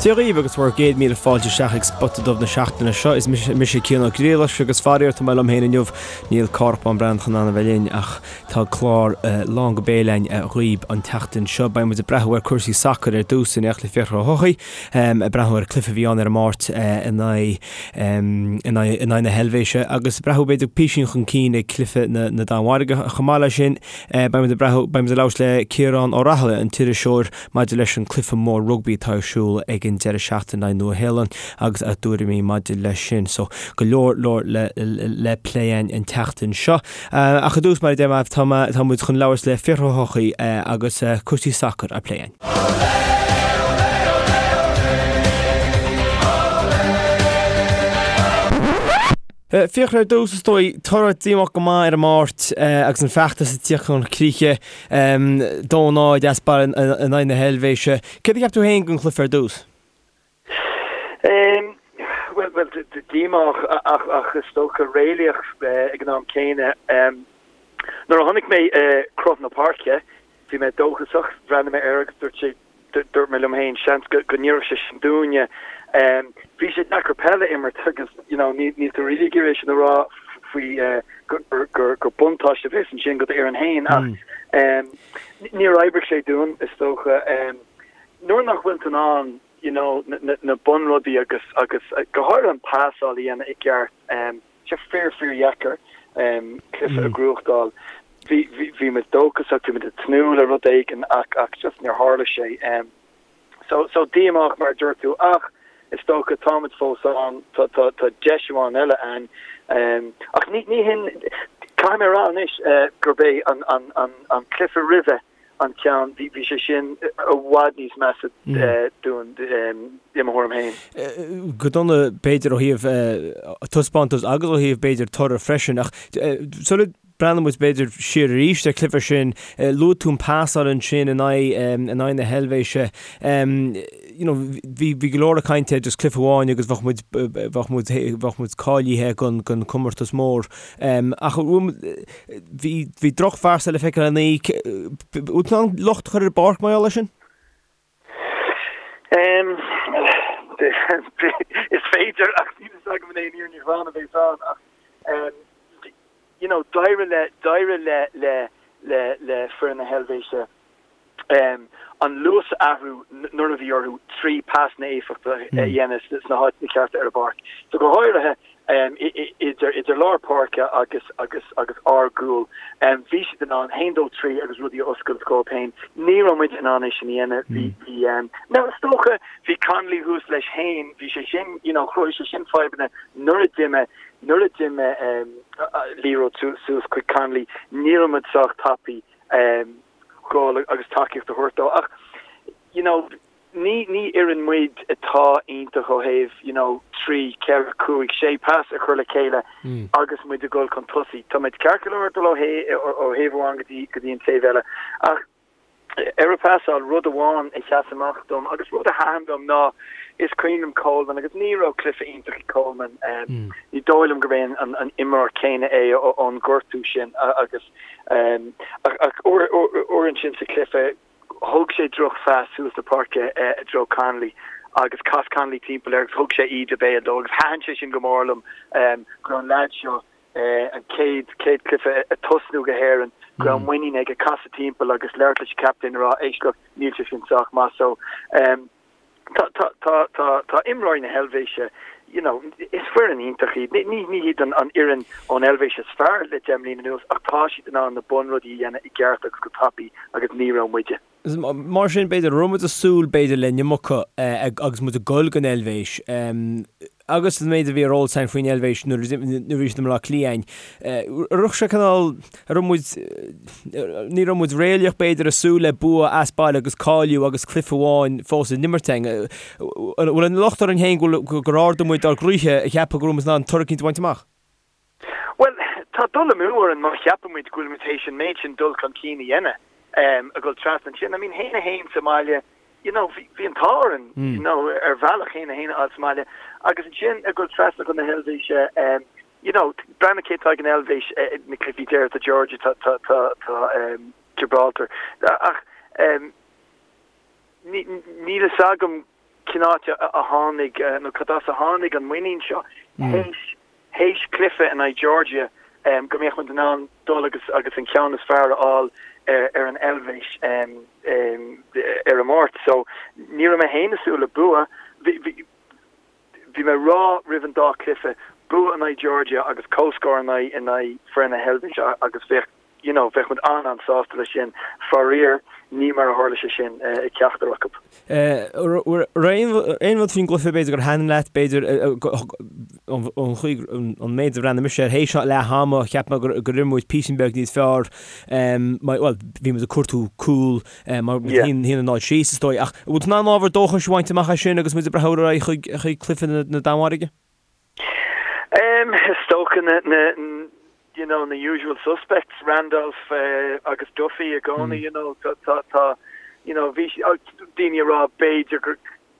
Dia dhaoibh agus bhur gcéad míle fáilte isteach ag Spota Dubh na seachtaine seo. Is mise Cian Ó Griallais agus faraor tá mé liom féin inniu. Níl Cárthach Bán Breathnach in ann a bheith linn ach tá clár lán go béal againn dhaoibh an tseachtain seo. Beidh muid ag breathnú ar cúrsaí sacair ar dtús in éineacht le Fiachra Ó hEochaidh, ag breathnú ar an cluiche a bhí ann ar an Máirt in aghaidh in aghaidh na hEilvéise agus ag breathnú b'fhéidir písín chun cinn ag cluiche na Danmhairge. Chomh maith leis sin beidh muid ag breathnú beidh muid ag labhairt le Ciarán Ó Raghallaigh, an t-iriseoir, Maidir leis an cluiche mór rugbaí atá ar siúl ag an deireadh seachtaine in aghaidh Nua Shéalainn agus a dtuairimí maidir leis sin. So, go leor leor le le plé againn an tseachtain seo. Ach i dtús, mar a deir mé, tá mé tá muid chun labhairt le Fiachra Ó hEochaidh agus cúrsaí sacair á plé againn. Fiachra, ar dtús, is dóigh, toradh díomách go maith ar an Máirt agus an feachtas ag tíocht chun críche, 2-0 as baile in aghaidh na hEilvéise. Céard a cheap tú féin den chluiche ar dtús? Bhuel, bhuel, díomách ach, ach is dócha réalaíoch ag an am céanna. Nuair a chonaic mé cruth na páirce, bhí mé dóchasach, bhreathnaigh mé air agus dúirt sé, Dúirt mé liom féin, seans go n-oirfeadh sé sin dúinne. Bhí sé deacair peil a imirt agus you know níl tú really ag iarraidh é sin a rá faoi gur buntáiste a bheas ansin do d'fhoireann féin ach níor oibrigh sé dúinn is dócha. Nuair nach bhfuil tú in ann you know na bunrudaí agus agus go háirithe an pasáil a dhéanamh i gceart, sé fíor fíor dheacair cluiche a ghnóthachtáil. Bhí bhí muid dóchasach, bhí muid ag tnúth le rud éigin ach ach just níor tharla sé. So so díomách mar a dúirt tú ach is dócha táimid fós ann, tá tá tá deis amháin eile ann. Ach ní ní hin caithfidh mé a rá anois gurb é an an an an cluiche roimhe an ceann, bhí bhí sé sin i bhfad níos measa dúinn i mo thuairim féin. Go dona b'fhéidir ó thaobh taispeántas agus ó thaobh b'fhéidir toradh freisin ach sula breathnaíonn muid b'fhéidir siar arís ar chluiche sin, luaigh tú an pasáil ansin in aghaidh in aghaidh na hEilvéise. You know bhí bhí go leor ag caint ar just cluiche amháin agus bheadh muid bheadh muid bheadh muid cáilithe don don comórtas mór. Ach Bhí, bhí drochphasáil le feiceáil in aghaidh, bhfuil tú in ann locht a chur ar an bpáirc mar gheall air sin? Is féidir ach níl fhios agam an é an fhírinne ghlan a bheas ann ach you know d'éirigh le, d'éirigh le, le, le, le foireann na hEilvéise an luas a athrú nuair a bhí orthu 3 pasanna éifeachtacha a dhéanamh sna háiteanna cearta ar an bpáirc. So go háirithe idir idir lár páirce agus agus agus ár gcúl, bhí siad in ann haon dó 3 agus rudaí a oscailt dhóibh féin. Ní raibh muid in ann é sin a dhéanamh. Bhí bhí now is dócha bhí Connolly thuas leis féin, bhí sé sin you know chruthaigh sé sin fadhbanna nuair a d'imigh nuair a d'imigh liathróid suas chuig Connolly ní raibh muid sách tapaidh dhul agus tacaíocht a thabhairt dó ach you know ní ní fhoireann muid atá iontach ó thaobh you know 3, 4, 5, 6 pas a chur le chéile agus muid ag dul chun tosaigh. Tá muid ceart go leor dul ó ó thaobh amháin go dtí go dtí an taobh eile ach ar an bpasáil rud amháin a sheas amach dom agus rud a thaitin liom ná is cuimhin liom Coleman agus ní raibh cluiche iontach ag Coleman ní dóigh liom gurb é an an imreoir céanna é ón gortú sin agus Ach uair ansin sa chluiche, thug sé drochphas suas na páirce i dtreo Connolly agus chas Connolly timpeall air agus thug sé íde béil dó agus thaitin sé sin go mór liom go raibh an leaid seo, an chéad chéad chluiche ag tosnú do hÉirinn, go raibh muinín aige casadh timpeall agus labhairt leis an captaen a rá éist look, níl sé sin sách maith so. Tá, tá, tá, tá, tá imreoirí na hEilvéise, you know, is foireann iontach iad. Ní, ní hiad an, an fhoireann ón Eilvéis is fearr le 10 mbliana anuas ach tá siad in ann na bunrudaí a dhéanamh i gceart agus go tapaidh agus ní raibh muide. Mar sin, b'fhéidir, raibh muid ag súil, b'fhéidir, le an iomarca agus muid ag dul don Eilvéis. Agus an méid a bhí ar eolas againn faoin Eilvéis nuair a bhí siad i mBaile Átha Cliath, an raibh sé cineál, an raibh muid, ní raibh muid réalaíoch b'fhéidir ag súil le bua as baile agus cáiliú agus cluiche amháin fós in imirt againn. An bhfuil an locht orainn féin gur ardaigh muid ár gcroíthe ag ceapadh go raibh muid in ann toradh eicínt a bhaint amach? Bhuel, tá dul amú orainn má cheapann muid go bhfuil muid théis an méid sin dul chun cinn a dhéanamh, a dhul trasna ansin. I mean, haon a haon sa mbaile, you know, bhí an t-ádh orainn, you know, ar bhealach haon a haon a fháil sa mbaile. Agus ansin a dhul trasna chun na hEilvéise, you know, breathnaigh cé atá ag an Eilvéis, na cluichí deiridh, tá Georgia, tá, tá, tá, tá Gibraltar. Ach níl fhios agam. cén áit a tháinig nó cad as a tháinig an muinín seo théis théis cluiche in aghaidh Georgia go mbeadh muid in ann dul agus agus an ceann is fearr a fháil ar ar an Eilvéis ar an Máirt. So ní raibh mé féin ag súil le bua. Bhí bhí bhí mé ag rá roimh an dá chluiche, bua in aghaidh Georgia agus comhscór in aghaidh in aghaidh foireann na hEilvéise agus bheadh you know, bheadh muid an-an-sásta leis sin. Faraor, ní mar a tharla sé sin ag ceachtar acu. Aon rud faoin gcluiche b'fhéidir gur thaitin leat, b'fhéidir an chaoi, an méid a bhreathnaigh mise air théis leath ama, cheap mé gur imir muid píosa beag níos fearr, bhuel, bhí muid ag cuartú cúl mar 1-0 síos is dóigh, ach an bhfuil tú in ann ábhar dóchais a bhaint amach as sin agus muid ag breathnú ar aghaidh chuig cluiche na Danmhairge? Is dócha na, na, you know, na usual suspects, Randolph agus Duffy i gcónaí, you know, tá, tá, tá, you know, bhí daoine ag rá b'fhéidir go,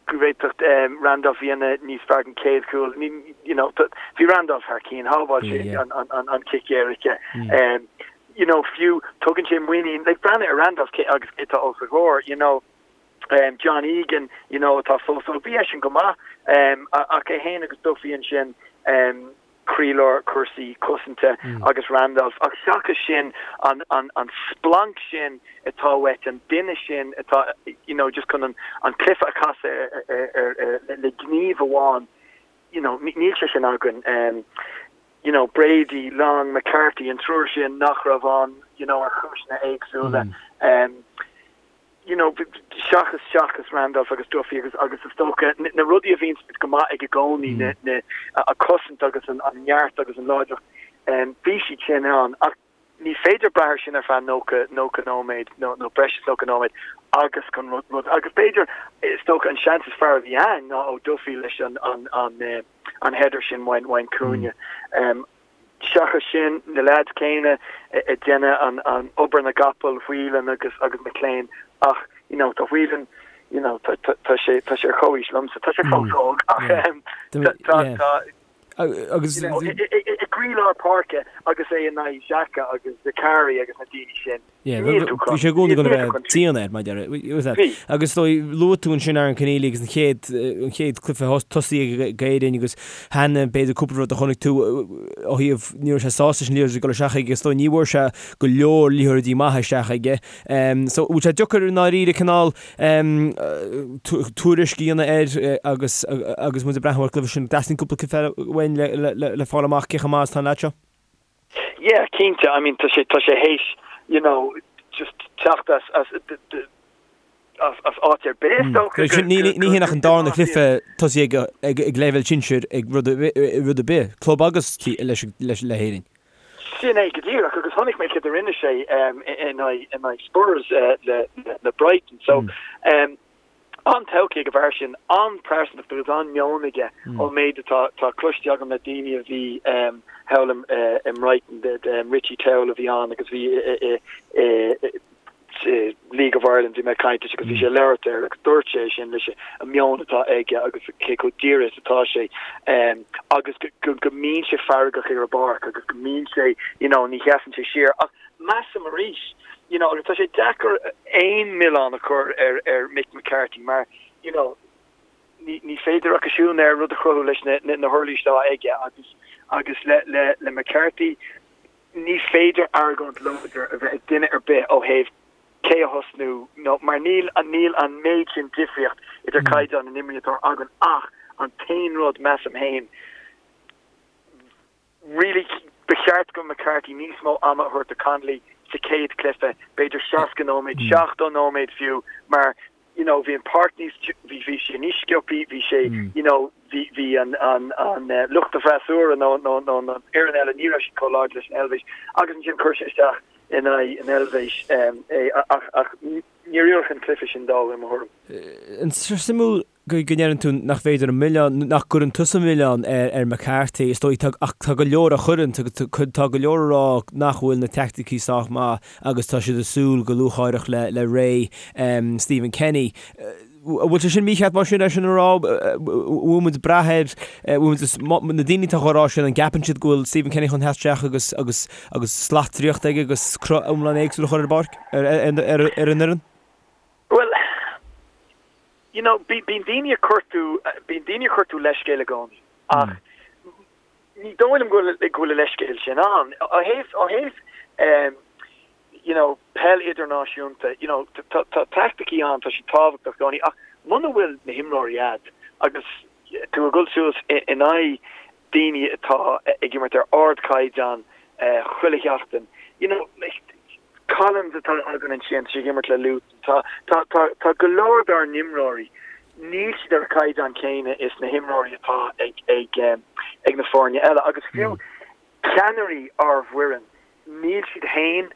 go bhféadfadh Randolph a dhéanamh níos fearr den chéad chúl, you know, bhí Randolph thar cinn, shábháil sé an, an, an, an cic éirice. You know, fiú, tugann sé muinín, like, breathnaigh ar Randolph cé, agus cé atá os a chomhair, you know, John Egan, you know, atá fós óg, bhí eisean go maith, ach é féin agus Duffy ansin, croílár cúrsaí cosanta agus Randolph, ach seachas sin, an, an, an splanc sin atá uait, an duine sin atá, you know, just chun an, an cluiche a chasadh ar, ar, ar, ar, le gníomh amháin, you know, níl sé sin againn. You know, Brady, Long, McCarthy, an triúr sin nach raibh ann, you know, ar chúiseanna éagsúla. You know, seachas, seachas Randolph agus Duffy agus, agus is dócha, na rudaí a bhíonn go maith ag i gcónaí, na, na, a cosaint agus an, an neart agus an láidreacht, bhí siad sin ann. Ach ní féidir brath ar sin ar feadh 90, 90 nóiméad nó, nó breis is 90 nóiméad agus chun rud, rud, agus b'fhéidir, is dócha an seans is fearr a bhí ann ná ó Duffy leis an, an, an, an header sin ón, ón cúinne. Seachas sin, na leaids céanna ag déanamh an obair na gcapall, Whelan agus agus McClean ach you know tá Whelan you know tá tá sé tá sé ar chomhaois liomsa, tá sé fós óg ach tá tá agus you know i gcroílár páirce agus é in aghaidh Xhaka agus Zakari agus na daoine sin. Yeah, bhí sé i gcónaí chun a bheith dian air, mar deir. Bhí. Agus luaigh tú ansin Aaron Conneely agus an chéad, an chéad cluiche tosaigh ag Éirinn agus cheana b'fhéidir cúpla rud a chonaic tú ó thaobh, ní raibh sé sásta leis an liathróid ag dul isteach aige is dóigh ní bhfuair sé go leor liathróidí maithe isteach aige. So bhfuil sé deacair i ndáiríre cineál tuairisc a dhéanamh air agus agus muid ag breathnú ar an gcluiche sin. Teastaíonn cúpla cluiche uainn le, le, le, le fáil amach cé chomh maith is atá an leaid seo. Yeah, cinnte, I mean tá sé, tá sé théis, you know, just teacht as, as, as, as áit ar bith is dócha go, Ní, ní hin ach an darna cluiche tosaigh ag, ag, ag leibhéal sinsir ag rud, rud ar bith, club agus leis, leis, le hÉirinn. Sin é go díreach agus chonaic mé céard a rinne sé um, in aghaidh, in aghaidh Spurs uh, le, le, le Brighton. So, um, An-todhchaí ag an bhfear sin, an-phearsantacht agus an-meon aige ón méid atá tá cloiste agam le daoine a bhí thall i mBrighton, Richie Towell a bhí ann agus bhí i League of Ireland, bhí mé ag caint leis agus bhí sé ag labhairt air agus dúirt sé sin leis an meon atá aige agus cé chomh dírithe is atá sé agus go go mbíonn sé feargach ar an bpáirc agus go mbíonn sé you know ní sheasann sé siar ach measaim arís you know, agus tá sé deacair aon milleán a chur ar, ar Mick McCarthy mar, you know, ní, ní féidir ach siún air rud a chruthú leis na, na, na huirlisí atá aige agus, agus le, le, le McCarthy ní féidir argóint láidir a bheith ag duine ar bith ó thaobh cé a thosnú nó mar níl, níl an méid sin difríocht idir caighdeán na n-imreoirí atá againn ach an t-aon rud, measaim féin, Really, ba cheart do McCarthy níos mó ama a thabhairt do Connolly sa chéad chluiche, b'fhéidir 60 nóiméad, 70 nóiméad fiú, mar you know bhí an páirc níos, bhí, bhí sé níos sciobthaí, bhí sé, you know, bhí, bhí an, an, an lucht an fhreasúra nó, nó, nó an fhoireann eile, ní raibh siad chomh láidir leis an Eilvéis agus ansin chuir sé isteach in aghaidh an Eilvéis é ach, ach níor oir an cluiche sin dó i mo thuairim. Suimiúil go ndeireann tú nach féidir an milleán, nach gcuireann tusa an milleán ar McCarthy, is dóigh, ach tá go leor a chuireann, tá go leor a rá nach bhfuil na teaicticí sách maith agus tá siad ag súil go lúcháireach le ré Stephen Kenny. An bhfuil sé sin mícheart mar sin é sin a rá? Bhfuil muid ag brath air, bhfuil muid, na daoine atá á rá sin, an gceapann siad go bhfuil Stephen Kenny chun theacht isteach agus agus agus slat draíochta aige agus cruth iomlán éagsúil a chur ar an bpáirc, ar an fhoireann? Bhuel. You know, bíonn daoine ag cuartú, bíonn daoine ag cuartú leithscéal i gcónaí ach ní dóigh liom go bhfuil, go bhfuil a leithscéal sin ann. Ó thaobh, ó thaobh ehm you know, peil idirnáisiúnta, you know, tá, tá taicticí ann, tá siad tábhachtach i gcónaí ach muna bhfuil na himreoirí a'd agus tú ag dul suas in aghaidh daoine atá ag imirt ar ardchaighdeán chuile sheachtain, you know, like, Collins atá againn ansin, tá sé ag imirt le Luton, tá, tá, tá, tá go leor dár n-imreoirí, níl siad ar an chaighdeán céanna is na himreoirí atá ag, ag, ag na foirne eile agus fiú ceannairí ár bhfoireann, níl siad féin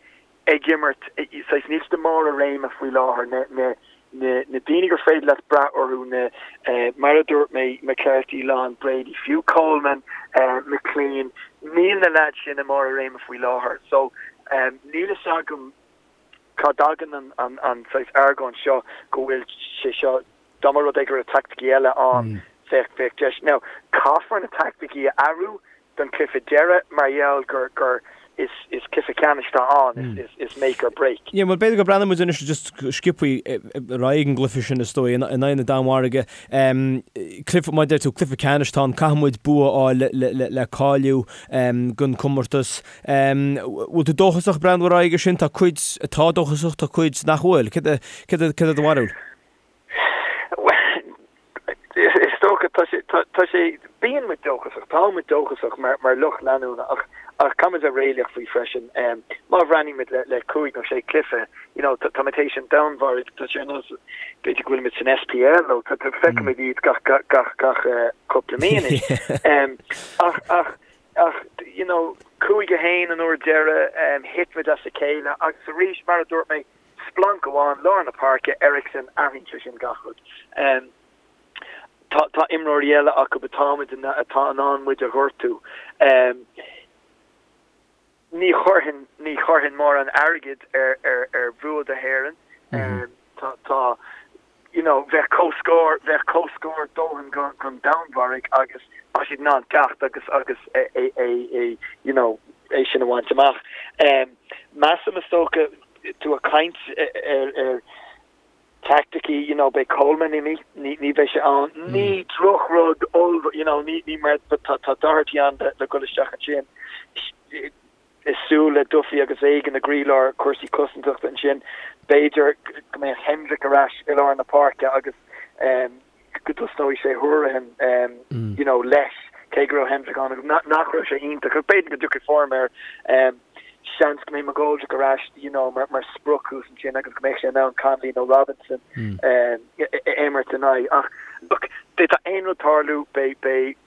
ag imirt, saghas, níl siad i mbarr a réime faoi láthair, na, na, na, na daoine gur féidir leat brath orthu, na, mar a dúirt mé, McCarthy, Long, Brady, fiú Coleman, McClean, níl na leaids sin i mbarr a réime faoi láthair. So, níl fhios agam cá dtagann an, an, an saghas argóint seo go bhfuil sé seo, dá mba rud é go raibh taicticí eile ann, bheadh, bheadh deis. Now, caithfear na taicticí a athrú don chluiche deiridh mar gheall gur gur is is cluiche ceannais atá ann, is is make or break. Yeah, bhuel b'fhéidir go breathnóidh muid anois just sciobthaí ar aghaidh an gcluiche sin is dóigh in aghaidh na Danmhairge. Cluiche, mar a deir tú, cluiche ceannais atá ann, caithfidh muid bua a fháil le le le cáiliú don chomórtas. Bhfuil tú dóchasach breathnú ar aghaidh air sin? Tá cuid atá dóchasach, tá cuid nach bhfuil. Céard é céard é céard é do bharúil? Bhuel, is dócha, tá sé, tá sé, bíonn muid dóchasach, tá muid dóchasach mar, mar lucht leanúna ach, ach caithfidh muid a bheith réalaíoch faoi freisin. Má bhreathnaímid le, le cúig nó sé cluiche, you know, tá, táimid théis an Danmhairg, tá sé ar nós, b'fhéidir go bhfuilimid san SPL nó tá, tá, feicimid iad gach, gach, gach, gach cúpla mí anois. Ach, ach, ach, you know, 5-1 an uair deiridh, thit muid as a chéile agus arís, mar a dúirt mé, Splanc amháin, lár na páirce, Eriksen, athraíonn sé sin gach rud. Tá tá imreoirí eile acu atá muid in atá in ann muid a ghortú. Ní chuirfinn ní chuirfinn mórán airgid ar ar ar bhua do hÉireann. Tá tá you know, bheadh comhscór, bheadh comhscór dóthain don Danmhairg agus tá siad in ann teacht agus agus é, é, é, é, you know, é sin a bhaint amach. Measaim is dócha, tú ag caint ar, ar taicticí, you know, beidh Coleman imithe, ní, ní bheidh sé ann. Ní drochrud ollmhór, you know, ní, ní mar, tá, tá Doherty ann le, le dhul isteach ansin. Is súil le Duffy agus Egan i gcroílár cúrsaí cosantachta ansin. B'fhéidir go mbeadh Hendrick ar ais i lár na páirce agus go dtosnóidh sé Hourihane you know leis, cé go raibh Hendrick ann agus nach raibh sé iontach ach b'fhéidir go dtiocfaidh form air. Seans go mbeidh McGoldrick ar ais you know mar mar sprioc thuas ansin agus go mbeidh sé in ann Connolly nó Robinson a imirt in aghaidh. Ach look, d'fhéadfadh aon rud tarlú, beidh beidh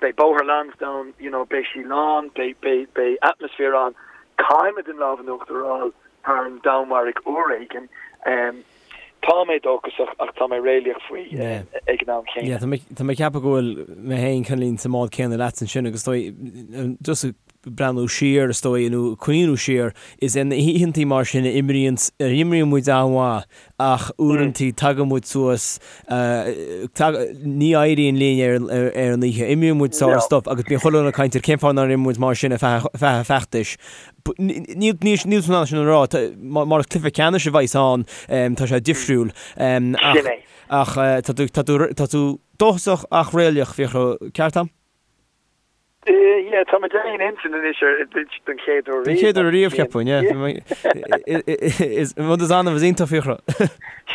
Beidh Bóthar Lansdowne, you know, beidh sí lán, beidh, beidh, beidh atmaisféar ann. Caithfimid an lámh in uachtar a fháil thar an Danmhairg uair éigin. Tá mé dóchasach ach tá mé réalaíoch faoi ag an am chéanna. Yeah, tá mé, tá mé ag ceapadh go bhfuil mé féin cineáilín sa mbád céanna leatsa ansin agus is dóigh, just ag breathnú siar is dóigh nó cuimhniú siar, is in oícheantaí mar sin a imríonn, a imríonn muid an-mhaith ach uaireantaí tagann muid suas, ní éiríonn linn ar an oíche. Imríonn muid sár-stuif agus bíonn chuile dhuine ag caint ar cén fáth nár imir muid mar sin ar feadh an feachtais. Níl tú in ann sin a rá, mar is cluiche ceannais a bheas ann, tá sé difriúil. Ach tá tú dóchasach ach réalaíoch, Fiachra, ceart a'm? Yeah, tá muid ar aon intinn anois ar don chéad uair riamh. Don chéad uair riamh, cheapfainn, yeah. Is rud is annamh is iontach, Fiachra.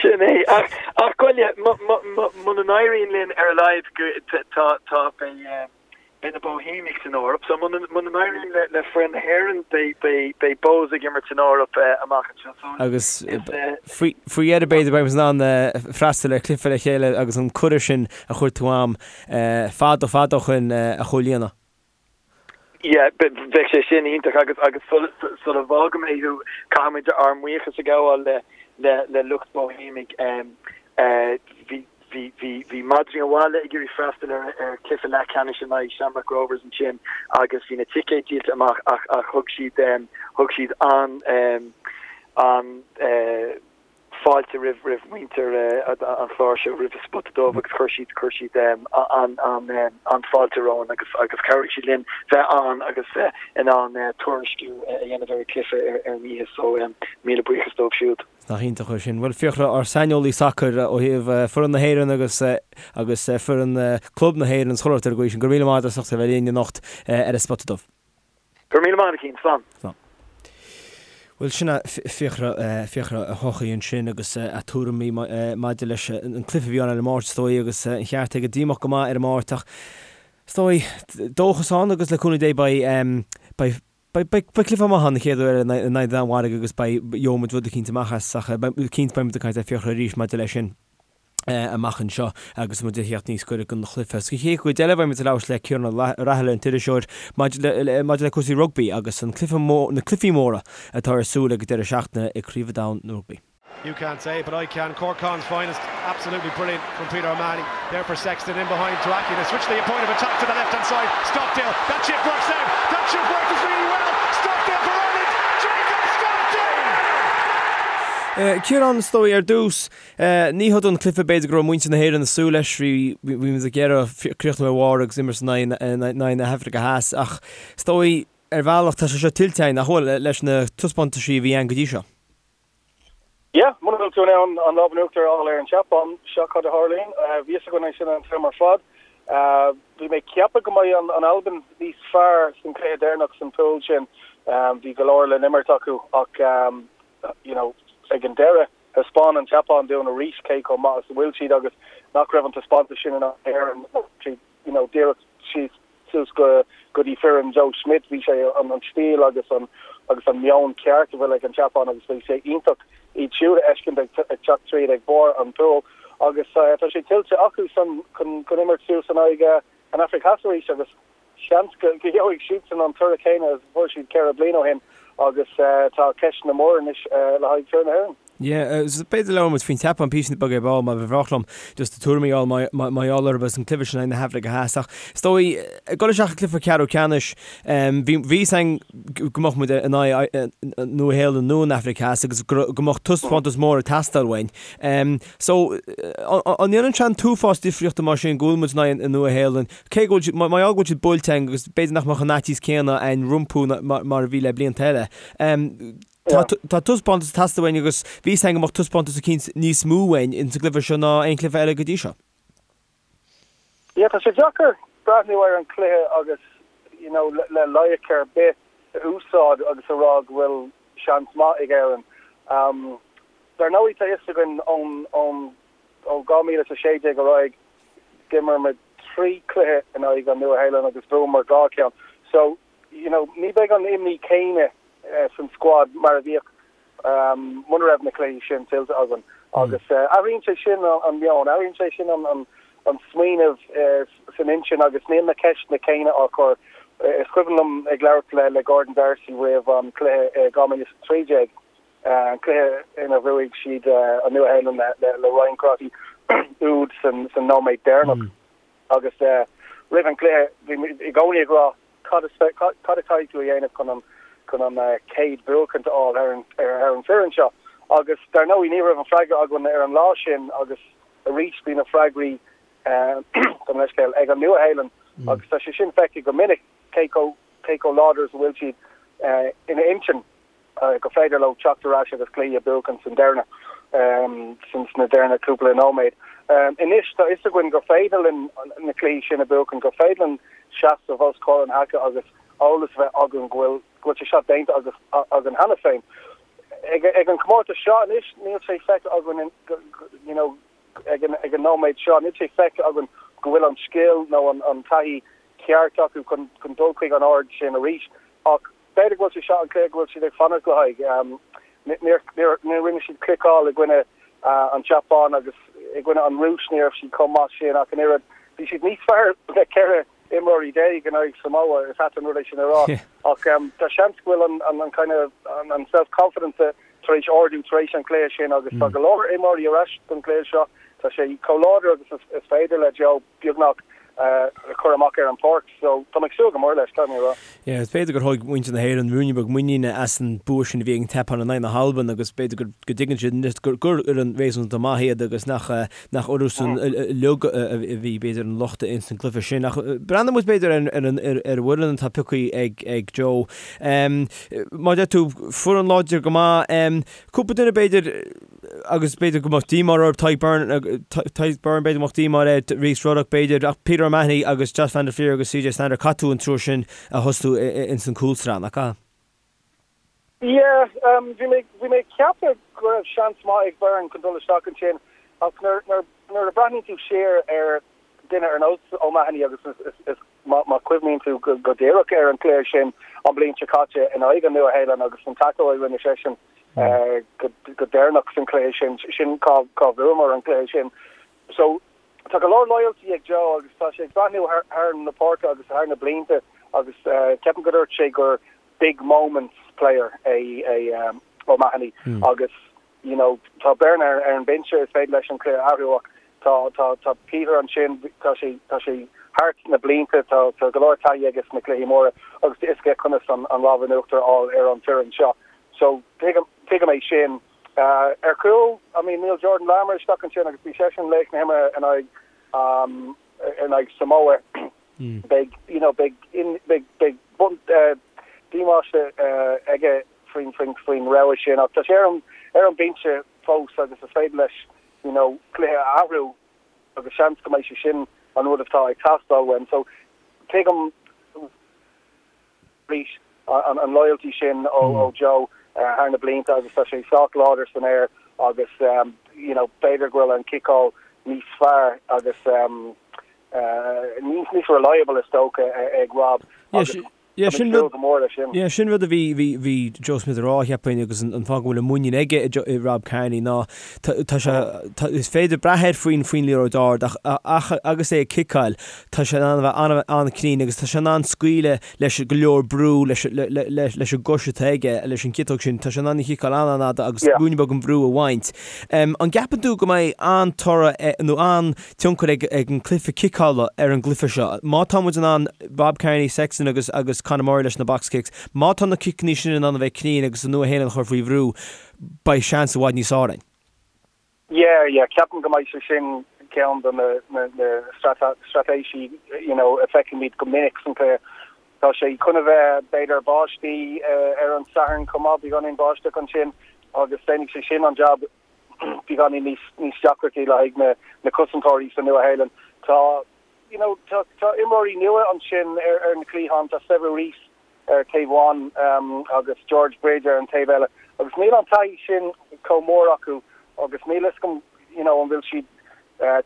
Sin é. Ach, ach goile, muna n-éiríonn linn ar a laghad go, tá, tá, beidh, beidh na Bohemians san Eoraip. So muna, muna n-éiríonn le, le foireann na hÉireann, beidh, beidh, beidh Bohs ag imirt san Eoraip amach anseo. So, Agus faoi, faoi dheireadh b'fhéidir beidh muid in ann freastal ar chluiche le chéile agus an cuireadh sin a chuir tú a'm fada fada ó shoin a chomhlíonadh. Yeah, bheadh sé sin iontach agus agus sula bhfága mé thú, caithfimid ár mbuíochas a ghabháil le le le lucht Bohemians. Bhí bhí bhí bhí madraí an bhaile ag iarraidh freastal ar ar chluiche leathcheannais in aghaidh Shamrock Rovers ansin agus bhí na ticéid díolta amach ach ach thug siad thug siad an an fáilte roimh roimh mhuintir an chláir seo, roimh an Spota Dubh agus chuir siad chuir siad an an an fáilte romhainn agus agus chabhraigh siad linn bheith ann agus bheith in ann tuairisciú a dhéanamh ar an chluiche ar an oíche so míle buíochas dóibh siúd. Nach iontach é sin. Bhuel, Fiachra, ár saineolaí sacair ó thaobh foireann na hÉireann agus agus foireann club na hÉireann is chuile shórt ar an gcaoi sin, go raibh míle maith agat as ucht a bheith linn anocht ar an Spota Dubh. Go raibh míle maith agat, a Chian. Slán. Slán. Bhuel, sin é Fiachra, Fiachra Ó hEochaidh ansin agus a tuairimí maidir leis an cluiche a bhí ann ar an Máirt is dóigh agus an cheart aige díomách go maith ar an Máirt ach is dóigh dóchas ann agus le cúnamh Dé beidh, beidh, beidh, beidh cluiche maith ann an chéad uair in aghaidh na Danmhairge agus beidh, gheobhaidh muid rud eicínt amach as ach cinnte beidh muid ag caint le Fiachra arís maidir leis sin. amach anseo agus muid ag theacht níos gaire don chluiche. Sa chéad chuid eile beidh muid ag labhairt le Ciarán Ó Raghallaigh, an t-iriseoir, maidir le maidir le cúrsaí rugbaí agus an cluiche mór, na cluichí móra atá ar súil ag an deireadh seachtaine ag Craobh an Domhain na Rugbaí. You can't say it, but I can. Cork Con's finest. Absolutely brilliant from Peter O'Mahony. There for Sexton in behind to Aki. They switch the point of attack to the left hand side. Stockdale. That chip works out. That chip works really well. Stockdale for Ireland. Jacob Stockdale! Ciarán, is dóigh ar dtús, Ní hé an cluiche b'fhéidir go raibh muintir na hÉireann ag súil leis, bhí muid ag iarraidh críochnú ar bharr agus imirt in aghaidh na hAfraice Theas ach is dóigh ar bhealach tá sé seo tuillte againn, nach bhfuil, leis na taispeántaisí a bhí ann go dtí seo. Yeah, muna bhfuil tú in ann an lámh in uachtar a fháil ar an tSeapáin, seo cad a tharlaíonn. Bhí fhios againn é sin an t-am ar fad. Bhí mé ag ceapadh go mbeidh an Albain níos fearr san cluiche deireanach san pool sin. Bhí go leor le n-imirt acu ach you know ag an deireadh, Thaispeáin an tSeapáin dúinn arís cé chomh maith is a bhfuil siad agus nach raibh an taispeántas sin in aghaidh na hÉireann, you know, díreach síos suas go go dtí foireann Joe Schmidt. Bhí sé an an stíl agus an agus an meon ceart a bhfuil ag an tSeapáin agus bhí sé iontach iad siúd a fheiscint ag ag teacht tríd ag barr an pool agus tá sé tuillte acu san chun chun imirt suas in aghaidh an Afraic Theas arís agus Seans go gheobhaidh siadsan an toradh céanna is a fuair siad 4 bliain ó shin agus tá ceisteanna móra anois le haghaidh foireann na hÉireann. Yeah, b'fhéidir labhróidh muid faoin tSeapáin píosa beag ar ball mar ba bhreá liom just do tuairimí a fháil mar gheall orthu agus an cluiche sin in aghaidh na hAfraice Theas ach is dóigh ag dul isteach i gcluiche ceathrú ceannais bhí fhios againn go mbeadh muid in aghaidh Nua Shéalainn nó an Afraic Theas agus go mbeadh taispeántas mór ag teastáil uainn. So an ndéanann sé an t-uafás difríochta mar sin go bhfuil muid in aghaidh an Nua Shéalainn Cé go bhfuil siad, mar gheall go bhfuil siad buailte againn agus b'fhéidir nach mbeadh an faitíos céanna againn rompu mar a bhí le blianta eile. Tá taispeántas ag teastáil uainn agus bhí fhios againn go mbeadh taispeántas eicínt níos mó uainn ins an gcluiche seo ná aon chluiche eile go dtí seo. Yeah, tá sé deacair breathnú ar an chluiche agus you know le loighic ar bith a úsáid agus a rá go bhfuil seans maith ag Éirinn. Dar ndóigh tá fhios againn ón ón Ó 2016 ar aghaidh, d'imir muid 3 chluiche in aghaidh an Nua-Shéalainn agus bhuamar 2 cheann. So, you know, ní bheidh an imní céanna san squad mar a bhíodh muna raibh na cluichí sin tuillte againn. Agus athraíonn sé sin an meon, athraíonn sé sin an smaoineamh san intinn agus níl na ceisteanna céanna á chur. Is cuimhin liom ag labhairt le Gordon D'Arcy roimh an cluiche i 2013, an cluiche ina bhuaigh siad an Nua-Shéalainn le Ryan Crotty úd san nóiméad deireanach agus roimh an gcluiche bhí muid i gcónaí ag rá cad cad a chaithfidh tú a dhéanamh chun an chun an chéad bhuachaint a fháil ar an ar an bhfoireann seo agus dar ndóigh ní raibh an freagra againn ar an lá sin agus arís bhí na freagraí gabh mo leithscéal ag an Nua-Shéalainn agus tá sé sin feicthe go minic cé chomh cé chomh láidir is a bhfuil siad ina intinn. gur féidir leo teacht ar ais agus cluichí a bhuachan san deireanach, sna deireanach cúpla nóiméad. Anois tá fhios againn gur féidir linn na cluichí sin a bhuachan, gur féidir linn seasamh os comhair an haice agus eolas a bheith againn go bhfuil go bhfuil sé seo déanta agus againn cheana féin. Ag ag an comórtas seo anois níl sé feicthe againn you know ag an ag an nóiméad seo níl sé feicthe againn go bhfuil an scil nó an an taithí ceart acu chun chun dul chuig an ard sin arís ach B'fhéidir go bhfuil sé seo an cluiche go bhfuil siad ag fanacht le haghaidh. Níor rinne siad cliceáil i gcoinne an tSeapáin agus i gcoinne an Rúis ní raibh siad chomh maith sin ach an oiread. Bhí siad níos fearr le 14 imreoirí in aghaidh Samoa, is ait an rud é sin a rá ach tá seans go bhfuil an kind of an self-confidence tar éis ardú tar éis an chluiche sin agus tá go leor imreoirí ar ais don chluiche seo. Tá sé chomh láidir agus is féidir le Joe beagnach. a chur amach ar an pháirc. So tá mé ag súil go mór leis, caithfidh mé a rá. Yeah, is b'fhéidir gur thóg muintir na hÉireann ruainne beag muiníne as an bua sin a bhí ag an tSeapáin in aghaidh na hAlban agus b'fhéidir go go dtuigeann siad anois gur gur fhoireann réasúnta maith iad agus nach nach orthusan uilig a bhí b'fhéidir an locht ins an gcluiche sin. Ach breathnóidh muid b'fhéidir ar ar an ar ar an bhfoireann atá pioctha ag ag Joe. Mar a deir tú, foireann láidir go maith. Cúpla duine b'fhéidir agus b'fhéidir go mbeadh díomá orthu, Tadhg Beirne, Tadhg Beirne, b'fhéidir go mbeadh díomá air, Rhys Ruddock b'fhéidir, ach Peter O'Mahony agus Josh van der Flier agus CJ Stander, caithfidh tú an triúr sin a thosú ins an gcúlsraith, nach ea? Yeah, bhí mé, bhí mé ag ceapadh go raibh seans maith ag Beirne chun dul isteach ansin ach nuair, nuair, nuair a breathnaíonn tú siar ar duine ar nós O'Mahony agus is, is, is má, má chuimhníonn tú go, go díreach ar an chluiche sin an bhliain seo caite in aghaidh an Nua-Shéalainn agus an tackle a rinne seisean, go deireanach san chluiche sin, sin cá bhuamar an cluiche sin. So tá go leor loyalty ag Joe agus tá sé ag breathnú thar na páirce agus thar na blianta agus ceapaim go dúirt sé gur big moments player é é O'Mahony agus you know tá Beirne ar an binse is féidir leis an cluiche a athrú ach tá tá tá Peter ansin tá sé tá sé thart na blianta tá tá go leor taithí aige sna cluichí móra agus tá a fhios aige conas an an lámh in uachtar a fháil ar an foireann seo. So, tuigim, tuigim é sin. Ar chúl, I mean, níl Jordan Larmour isteach ansin agus bhí seisean laoch na himeartha in aghaidh, in aghaidh Samoa. Beidh, you know, beidh, beidh, beidh bun, díomáiste aige faoin, faoin, faoin rogha sin ach tá sé ar an, ar an binse fós agus is féidir leis, you know, cluiche a athrú agus seans go mbeidh sé sin an rud atá ag teastáil uaim. So, tuigim, arís an loyalty sin ó Joe thar na blianta agus tá sé sách láidir san aer agus you know b'fhéidir go bhfuil an ciceáil níos fearr agus níos reliable is dócha ag Rob agus Yeah, sin rud, go mór leis sin. Yeah, sin rud a bhí, bhí, bhí Joe Schmidt a rá, cheapfainn, agus an, an fáth go bhfuil an muinín aige i, i Rob Kearney ná tá, tá sé, tá, is féidir brath air faoin, faoin liathróid ard ach, ach agus é ag ciceáil, Tá sé in ann a bheith an-chruinn agus tá sé in ann scaoileadh leis go leor brú leis an gcois atá aige, leis an gciotóg sin. Tá sé in ann í a chiceáil an-an-fhada agus ruainne beag an bhrú a bhaint. An gceapann tú go mbeidh an-toradh nó an-tionchar ag an gcluiche ciceála ar an gcluiche seo? Má tá muid in ann Rob Kearney, Sexton agus agus Conor Murray leis na box kicks, má tá na ciceanna sin in ann a bheith cruinn agus an Nua-Shéalainn a chur faoi bhrú, beidh seans i bhfad níos fearr againn. Yeah, yeah, ceapaim go mbeidh sé sin ceann de na na na straitéisí you know a feicimid go minic san chluiche. Tá sé chun a bheith b'fhéidir báistí ar an Satharn chomh maith, beagáinín báisteach ansin agus déanfaidh sé sin an jab beagáinín níos níos deacrachtaí le haghaidh na na cosantóirí sa Nua-Shéalainn. Tá you know tá tá imreoirí nua ansin ar ar na cliatháin, tá Sevu Reece ar taobh amháin agus George Bridge ar an taobh eile agus níl an taithí sin chomh mór acu agus níl fhios agam you know an bhfuil siad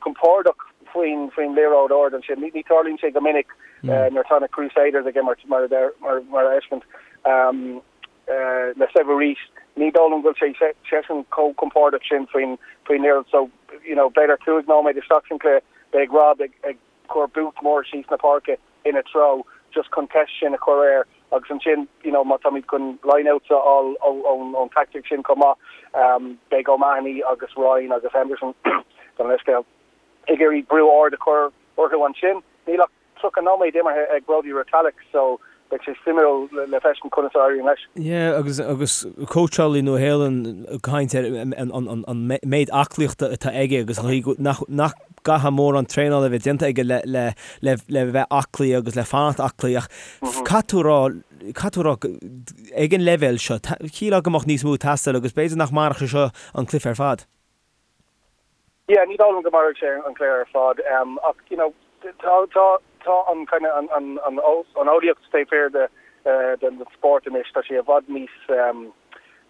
compordach faoin faoin liathróid ard ansin. Ní tarlaíonn sé go minic nuair atá na Crusaders ag imirt mar a mar mar a fheiscint le Sevu Reece. Ní dóigh liom go bhfuil sé seisean chomh compordach sin faoin faoin liathróid so you know b'fhéidir 5 nóiméad isteach san chluiche beidh Rob ag ag cur boot mór síos na páirce ina treo just chun ceist sin a chur air agus ansin you know má táimid chun lineouts a fháil ón tactic sin chomh maith beidh O'Mahony agus Ryan agus Henderson gabh mo leithscéal ag iarraidh brú ard a chur orthu ansin. Níl ach 30 nóiméad imeartha ag Brodie Retallick so beidh sé suimiúil le feiscint conas a éiríonn leis. Yeah agus agus cóitseálaí Nua Shéalainn ag caint ar an an an méid aclaíochta atá aige agus an chaoi nach nach gcaithfidh mórán traenála a bheith déanta aige le le le le bheith aclaí agus le fanacht aclaí ach caithfidh tú a rá caithfidh tú a rá ag an leibhéal seo shílfeá go mbeadh níos mó ag teastáil agus b'fhéidir nach mairfeadh sé seo an cluiche ar fad. Yeah, ní dóigh liom go mairfidh sé an cluiche ar fad ach you know tá tá tá an kind of an an an an eolaíocht taobh thiar de den spórt anois, tá sé i bhfad níos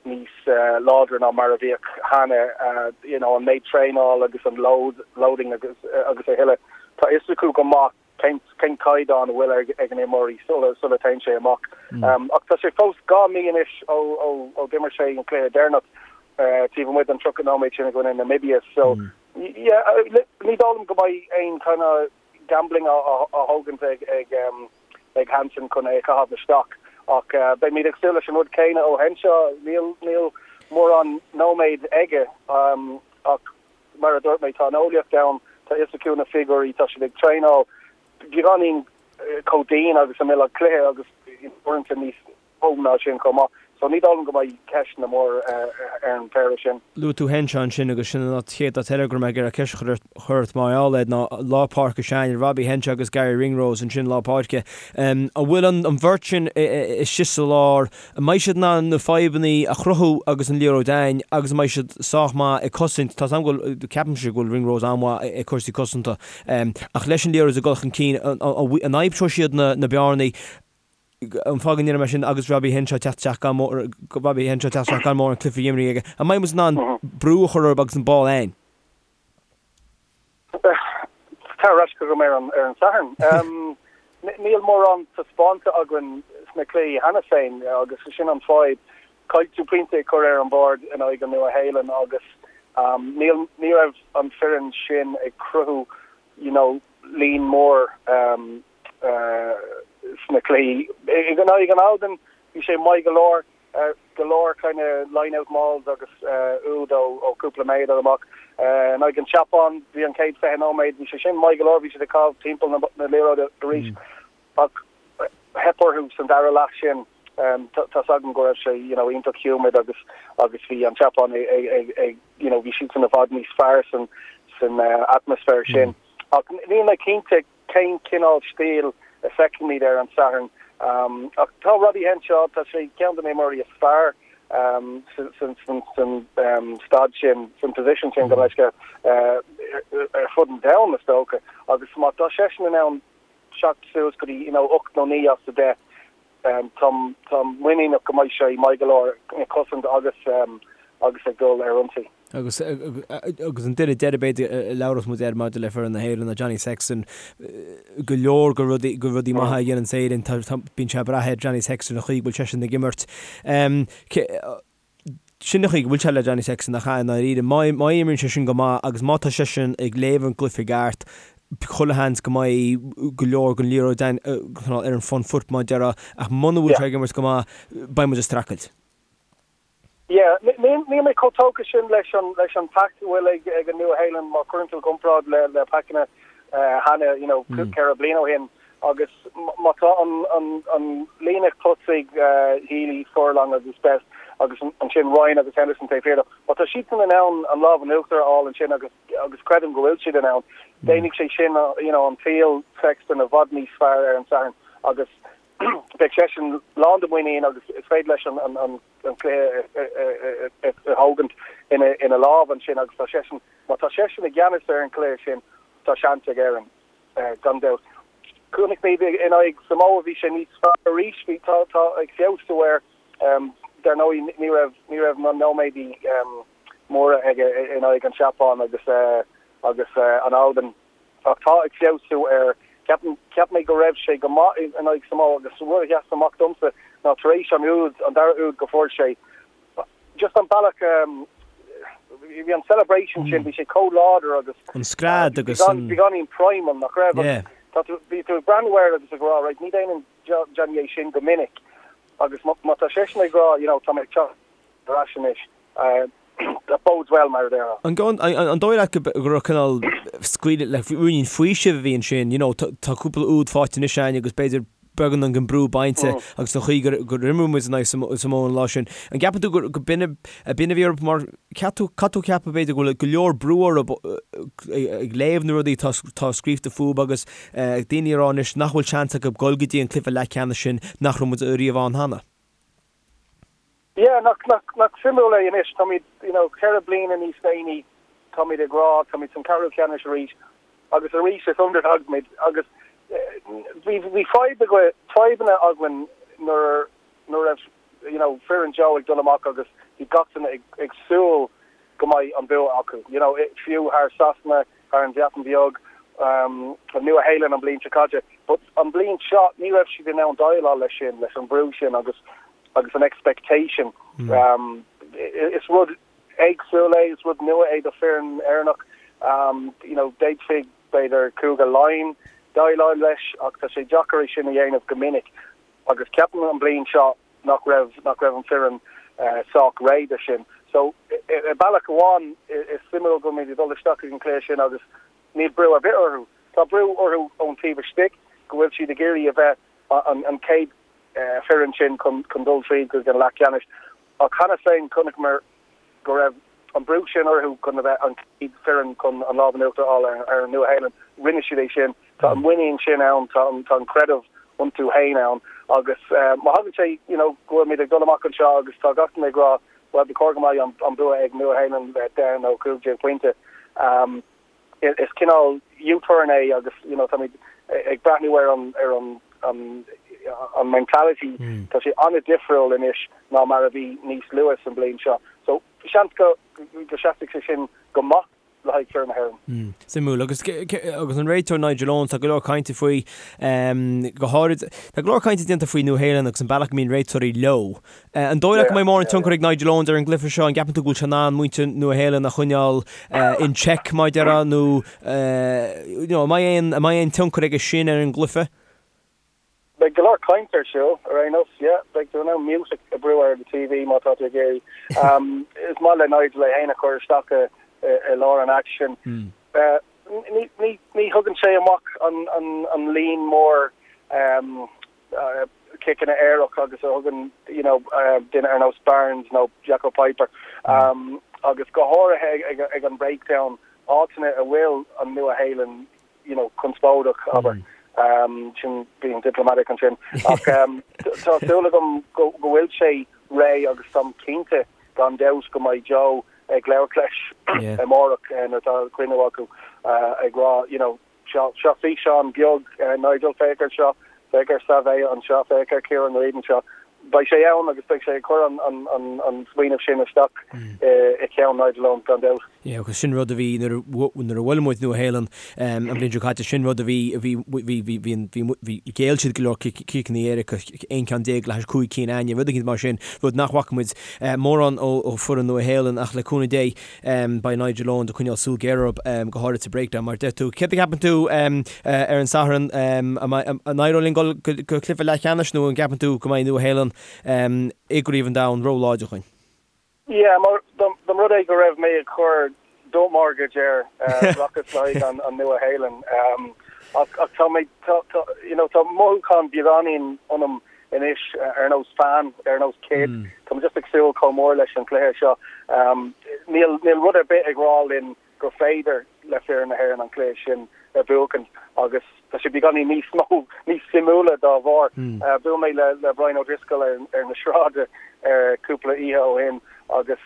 níos láidre ná mar a bhíodh cheana, you know an méid traenáil agus an load loading agus agus a thuilleadh. Tá fhios acu go maith cén cén caighdeán a bhfuil ag ag an imreoirí sula sula téann sé amach. Ach tá sé fós 2 mí anois ó ó ó d'imir sé an cluiche deireanach taobh amuigh den 30 nóiméad sin i gcoinne Namibia so yeah ní dóigh liom go mbeidh aon kind of gambling á á thógaint ag ag ag Hansen chun é a chaitheamh isteach ach beimid ag súil leis an rud céanna ó Henshaw. Níl níl mórán nóiméad aige ach mar a dúirt mé tá an eolaíocht ann, tá fhios acu na figiúirí, tá siad ag traenáil. beagáinín chomh dian agus a mbeadh cluiche agus uaireanta níos mó ná sin chomh maith. So ní dóigh liom go mbeidh ceisteanna mór ar an bpéire sin. Luaigh tú Henshaw ansin agus sin an chéad áit eile go raibh mé ag iarraidh ceist a chur ort mar gheall air ná lár páirce s'againne, Robbie Henshaw agus Garry Ringrose ansin lár páirce. An bhfuil an bheirt sin istigh sa lár, an mbeidh siad in ann na fadhbanna a chruthú agus an liathróid a'inn agus an mbeidh siad sách maith ag cosaint, tá 's agam go bhfuil, ceapaimse go bhfuil Ringrose an-mhaith ag cúrsaí cosanta ach leis an liathróid ag dul chun cinn, an aimseoidh siad na bearnaí? An fáth go ndeirim é sin agus Robbie Henshaw teacht isteach gan Robbie Henshaw teacht isteach gan mórán cluichí imeartha aige, an mbeidh muid in ann brú a chur orthu agus an ball a'inn? Tar ar ais chugam ar an ar an Satharn. Níl mórán taispeánta againn sna cluichí cheana féin agus sin an fadhb. Caithfidh tú pointe a chur ar an bhord in aghaidh an Nua-Shéalainn agus níl ní raibh an foireann sin ag cruthú you know líon mór sna cluichí. In aghaidh an Albain, bhí sé maith go leor, go leor kind of line-out mauls agus úd ó cúpla méadar amach. In aghaidh an tSeapáin, bhí an chéad 20 nóiméad, bhí sé sin maith go leor, bhí siad ag caitheamh timpeall na liathróide arís ach theip orthu san dara leath sin. Tá's agam go raibh sé you know iontach humid agus agus bhí an tSeapáin ag ag you know bhí siadsan i bhfad níos fearr san san atmaisféar sin. Ach níl mé cinnte cén cineál stíl a feicfimid ar an Satharn. Ach tá Robbie Henshaw, tá sé ceann de na himreoirí is fearr san staid sin, san position sin, gabh mo leithscéal, ar fud an domhain is dócha. Agus má tá seisean in ann teacht suas go dtí you know 8 nó 9 as 10, táim muiníneach go mbeidh sé maith go leor ag cosaint agus agus ag dul ar ionsaí. Agus agus an duine deiridh b'fhéidir a labhróidh muid air maidir le foireann na hÉireann ná Johnny Sexton. Go leor de rudaí de rudaí maithe a dhéanann Éirinn tá tá bíonn sé ag brath ar Johnny Sexton an chaoi go bhfuil seisean ag imirt. Sin an chaoi go bhfuil sé le Johnny Sexton nach ea i ndáiríre. Má má imríonn seisean go maith agus má tá seisean ag léamh an gcluiche i gceart chuile sheans go mbeidh go leor den liathróid ar an front foot mar a déarfá ach muna bhfuil sé ag imirt go maith beidh muid ag streachailt. Yeah, níl mé chomh tógtha sin leis an leis an pack a bhfuil ag ag an Nua-Shéalainn má chuireann tú i gcomparáid le le packanna cheana, you know, 4 bliain ó shin agus má tá an an an líne tosaigh Healy, Furlong agus Best agus ansin Ryan agus Henderson taobh thiar dó, má tá siadsan in ann an lámh in uachtar a fháil ansin agus agus creidim go bhfuil siad in ann, déanfaidh sé sin you know an tsaol Sexton i bhfad níos fearr ar an Satharn agus beidh seisean lán de mhuinín agus is féidir leis an cluiche a thógaint ina lámh ansin agus tá seisean, má tá seisean i gceannas ar an chluiche sin, tá seans ag Éirinn, gan dabht. Chonaic muid in aghaidh Samoa, bhí sé níos fearr arís, bhí, tá, tá ag feabhsú air. Dar ndóigh ní raibh, ní raibh na nóiméadaí móra aige in aghaidh an tSeapáin agus, agus an Albain. Ach tá ag feabhsú air. Ceapaim, cheap mé go raibh sé go maith in aghaidh Samoa agus rud a sheas amach domsa ná tar éis an úd, an dara úd go fuair sé, just an bealach, bhí an celebration sin, bhí sé chomh láidir agus An scread agus an. beagáinín primal, nach raibh? Agus tá tú, bhí tú ag breathnú air agus ag rá, right, ní dhéanann Johnny é sin go minic agus má tá seisean ag rá, you know, tá mé ag teacht ar ais anois. That bodes well, mar a déarfá. An dóigh leat go raibh cineál scaoileadh le ruainnín faoisimh a bhí ansin, you know, tá cúpla úd faighte anois againn agus b'fhéidir beagán den brú bainte agus an chaoi gur imir muid in aghaidh Samoa an lá sin. An gceapann tú gur b'in a bhí orthu mar cheap tú, caithfidh tú ceapadh b'fhéidir go bhfuil go leor brú orthu ag léamh na rudaí atá scríofa fúthu agus daoine ag rá anois nach bhfuil seans acu dul go dtí an cluiche leathcheannais sin nach raibh muid riamh ann cheana. Yeah, nach, nach, nach suimiúil é anois, táimid, you know, 4 bliana níos déanaí, táimid ag rá, táimid san ceathrú ceannais arís, agus arís is underdog muid, agus bhí, bhí fadhb againn, fadhbanna againn nuair, nuair a raibh, you know, foireann Joe ag dul amach agus bhí gach duine ag, ag súil go mbeidh an bua acu, you know, fiú thar Sasana, thar an Bhreatain Bheag, an Nua-Shéalainn an bliain seo caite. But an bliain seo ní raibh siad in ann déileáil leis sin, leis an brú sin agus agus an expectation. Is rud éagsúil é, is rud nua é do foireann Éireannach. You know, d'fhéadfaí b'fhéidir Cúige Laighean déileáil leis ach tá sé deacair é sin a dhéanamh go minic. Agus ceapaim an bliain seo nach raibh nach raibh an foireann sách réidh do sin. So i bealach amháin is suimiúil go bhfuil muid ag dul isteach ag an cluiche sin agus níl brú ar bith orthu. Tá brú orthu ón taobh istigh go bhfuil siad ag iarraidh a bheith an chéad foireann sin chun dul tríd go dtí an leath ceannais. Ach cheana féin chonaiceamar go raibh an brú sin orthu chun a bheith an chéad foireann chun an lámh in uachtar a fháil ar an Nua-Shéalainn. Rinne siad é sin. Tá an muinín sin ann, tá an creideamh iontu féin ann agus má thagann sé you know go bhfuilimid ag dul amach anseo agus tá gach duine ag rá bhuel ba chóir go mbeidh an bua ag Nua-Shéalainn le 10 nó 15 pointe. Is cineál U-turn é agus you know táimid ag breathnú ar an ar an an an mentality tá sé an-difriúil anois ná mar a bhí níos luaithe san bliain seo. So seans go go seasfaidh sé sin go maith le haghaidh foireann na hÉireann. Suimiúil. Agus agus an réiteoir Nigel Owens, tá go leor cainte faoi, go háirid, tá go leor cainte déanta faoi Nua Shéalainn agus an bealach go mbíonn réiteoirí leo. An dóigh leat go mbeidh mórán tionchar ag Nigel Owens ar an gcluiche seo? An gceapann tú go bhfuil sé in ann muintir Nua Shéalainn a choinneáil in check, mar a déarfá, nó you know, an mbeidh aon, an mbeidh aon tionchar aige sin ar an gcluiche? Beidh go leor caint ar siúl, ar aon nós, yeah. Beidh tú in ann mute a bhrú ar do TV má tá tú ag iarraidh. Is maith le Nigel é féin a chur isteach i lár an aicsin. Ní, ní, ní thugann sé amach an, an, an líon mór ciceanna éirice agus a thugann you know duine ar nós Barnes nó Jaco Peyper agus go háirithe ag ag an breakdown áiteanna a bhfuil an Nua Shéalainn you know conspóideach abair sin being diplomatic ansin ach tá súil agam go go bhfuil sé réidh agus táim cinnte gan dabht go mbeidh Joe ag labhairt leis amárach nuair atá cruinniú acu ag rá you know Seo, seo físeán beag, Nigel, féach air seo, féach ar Savea anseo, féach ar Kieran Read anseo. Beidh sé ann agus beidh sé ag cur an, an, an, an smaoineamh sin isteach i gceann Nigel Owens, gan dabht. Yeah, agus sin rud a bhí nuair a, nuair a bhuail muid Nua Shéalainn an bhliain seo caite, sin rud a bhí, a bhí, bhí, bhí, bhí, bhí, bhí, ghéill siad go leor ciceanna éirice, 11 ceann le hais 5 cinn againne, rud éicint mar sin, rud nach bhfaca muid mórán ó, ó foireann Nua Shéalainn ach le cúnamh Dé, Beidh Nigel Owens ag coinneáil súil ghéar orthu, go háirid sa breakdown, mar a deir tú. Céard a cheapann tú ar an Satharn? An éireoidh linn dul go cluiche leathcheannais nó an gceapann tú go mbeidh Nua Shéalainn i gCraobh an Domhain ró-láidir dhúinn? Yeah, mar dá mba rud é go raibh mé ag cur do mortgage air, rachas le haghaidh an Nua Shéalainn. Ach tá mé, you know, tá mothúchán beagáinín ionam anois ar nós fan, ar nós kid. Tá mé just ag súil chomh mór leis an chluiche seo. Níl níl rud ar bith ag rá linn gur féidir le foireann na hÉireann an cluiche sin a bhuachan agus tá sé beagáinín níos mó, níos suimiúla dá bharr. Bhuail mé le le Brian O'Driscoll ar ar na sráide cúpla oíche ó shin agus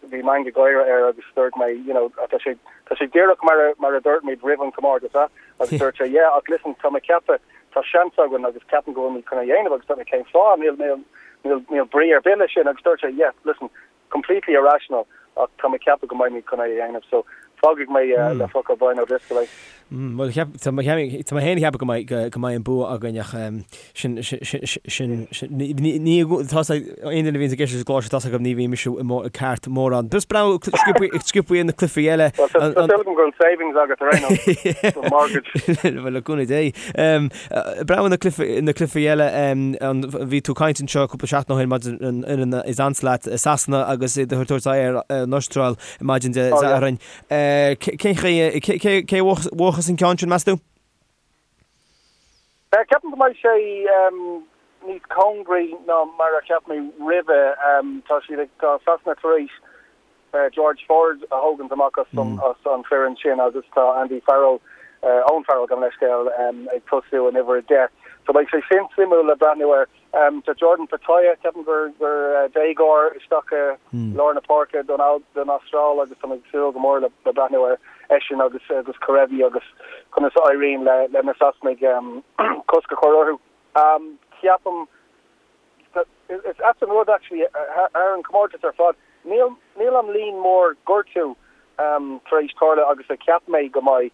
bhí meangadh gáire air agus dúirt mé, you know, tá sé, tá sé díreach mar a, mar a dúirt muid roimh an chomórtas, ah? Agus dúirt sé, yeah, ach listen, tá mé ag ceapadh, tá seans againn agus ceapaim go bhfuil muid chun é a dhéanamh agus dúirt mé, cén fáth, níl, níl, níl, níl brí ar bith leis sin agus dúirt sé, yeah, listen, completely irrational ach tá mé ag ceapadh go mbeidh muid chun é a dhéanamh, so fágfaidh mé le focal Brian O'Driscoll é. Bhuel, tá mé féin ag ceapadh go mbeidh go mbeidh an bua againn ach sin sin ní tá aon duine a bhíonns ag éisteacht leis an gclár seo tá 's agam ní bhíonn mise ceart mórán. Just breathnú sciobtha ar na cluichí eile. Tá súil agam go bhfuil savings agat ar aon nós don mortgage. Bhuel le cúnamh Dé. Breathnú na na cluichí eile bhí tú ag caint anseo cúpla seachtain ó shin maidir an fhoireann is ansa leat Sasana agus iad ag tabhairt aghaidh ar an Astráil maidin Dé Sathairn. Cén chaoi, cé a bhuafas an ceann sin, meas tú? Ceapaim go mbeidh sé níos cóngaraí ná mar a cheap mé roimhe. Tá siad ag, tá Sasana tar éis George Ford a thógaint amach as an foireann sin agus tá Andy Farrell, Owen Farrell, gabh mo leithscéal, ag tosú in uimhir 10. So beidh sé sin suimiúil le breathnú air. Tá Jordan Petaia, ceapaim gur déagóir, isteach i lár na páirce don Astráil agus tá mé ag súil go mór le breathnú ar eisean agus agus Kerevi agus conas a éiríonn le na Sasanaigh cosc a chur orthu. Ceapaim, is ait an rud actually thar an chomórtas ar fad, níl níl an líon mór gortú tar éis tarlú agus a cheap mé go mbeidh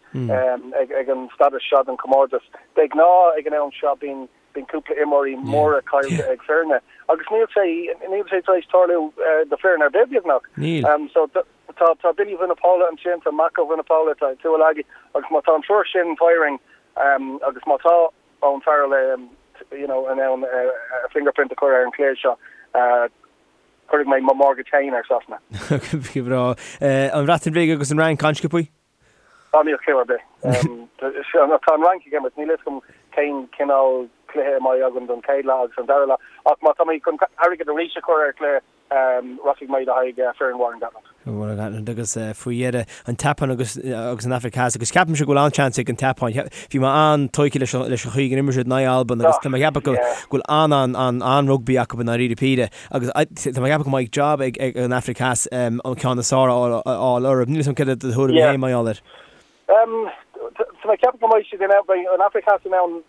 ag an stádas seo den chomórtas. De ghnáth ag an am seo bíonn Bíonn cúpla imreoirí móra caillte ag foirne agus níl sé níl sé tar éis tarlú do foireann ar bith beagnach. Níl. So tá tá Billy Vunipola ansin, tá Mako Vunipola, tá Tuilagi agus má tá an triúr sin firing agus má tá Owen Farrell you know in ann a fingerprint a chur ar an chluiche seo, cuirfidh mé mo mortgage féin ar Sasana. Go breá. An Bhreatain Bhig agus an Fhrainc an-sciobtha? Níl cliú ar bith. Tá an Fhrainc ag imirt, níl a fhios agam cén cineál cluiche a mbeidh againn don chéad leath agus an dara leath, ach má tá mé chun airgead arís a chur ar chluiche, rachaidh mé le haghaidh foireann Warren Gatland. Warren Gatland agus faoi dheireadh an tSeapáin agus agus an Afraic Theas agus ceapaimse go bhfuil an-seans ag an tSeapáin. Bhí mé an-tógtha leis an leis an chaoi gur imir siad in aghaidh Albain agus tá mé ag ceapadh go bhfuil an-an-an-rugbaí acu i ndáiríre píre agus tá mé ag ceapadh go mbeidh job ag ag an Afraic Theas an ceann is fearr a fháil orthu. Níl a fhios agam céard é do thuairim féin mar gheall air. Tá mé ag ceapadh go mbeidh siad in ann, beidh an Afraic Theas in ann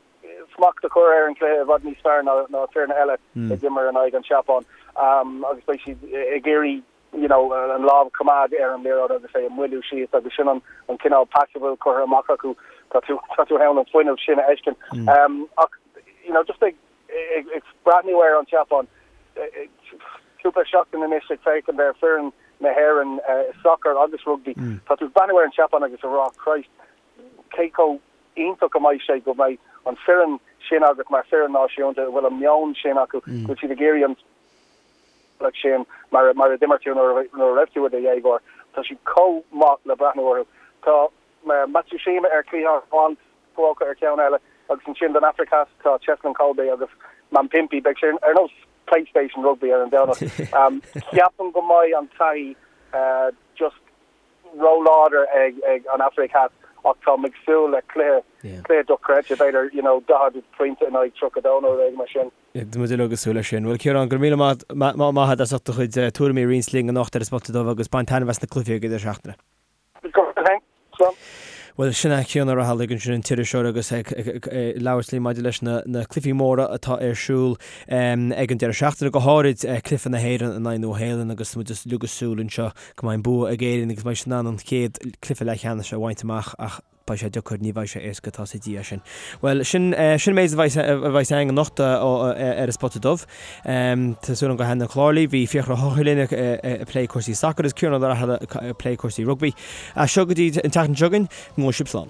smacht a chur ar an chluiche i bhfad níos fearr ná ná foirne eile a d'imir in aghaidh an tSeapáin agus beidh siad ag iarraidh you know an lámh a choimeád ar an liathróid agus é a mhoilliú síos agus sin an an cineál pas a bhfuil curtha amach acu. Tá tú tá tú in ann an fuinneamh sin a fheiscint. Ach you know just ag ag ag breathnú ar an tSeapáin cúpla seachtain anois ag féachaint ar foireann na hÉireann i sacar agus rugbaí, tá tú ag breathnú ar an tSeapáin agus ag rá Christ cé chomh iontach a mbeidh sé go mbeidh an foireann sin agat mar foireann náisiúnta a bhfuil an meon sin acu, go bhfuil siad ag iarraidh an bealach sin mar mar a d'imir tú nuair a raibh tú i do dhéagóir. Tá siad chomh maith le breathnú orthu. Tá Matsushima ar chliathán amháin, Fukuoka ar cheann eile agus ansin don Afraic Theas tá Cheslin Kolbe agus Mapimpi. Beidh sé ar nós PlayStation Rugby ar an Domhnach. Ceapaim go mbeidh an taithí just róláidir ag an Afraic Theas ach táim ag súil le cluiche, cluiche dochreidte, b'fhéidir, you know, 40 pointe in aghaidh 32 nó rud éigin mar sin. Tá muid uilig ag súil leis sin. Bhuel, Ciarán, go raibh míle maith agat as ucht do chuid tuairimí a roinnt linn anocht ar an Spota Dubh agus bain taitneamh as na cluichí ag an deireadh seachtaine. Go raibh maith agat. Bhuel, sin é Cian Ó Raghallaigh ansin, an t-iriseoir agus ag labhairt linn maidir leis na cluichí móra atá ar siúl ag an deireadh seachtaine, go háirid cluiche na hÉireann in aghaidh Nua Shéalainn agus muid uilig ag súil anseo go mbeidh an bua ag Éirinn agus beidh siad in ann an chéad cluiche leathcheannais a bhaint amach ach beidh sé deacair, ní bheidh sé éasca, tá 's ag Dia sin. Bhuel, sin sin an méid a bheidh a bheidh againn anocht ar an Spota Dubh. Tá súil agam gur thaitin an clár libh. Bhí Fiachra Ó hEochaidh linn ag plé cúrsaí sacair agus Ciarán Ó Raghallaigh ag plé cúrsaí rugbaí. As seo go dtí an tseachtain seo chugainn, go bhfága sibh slán.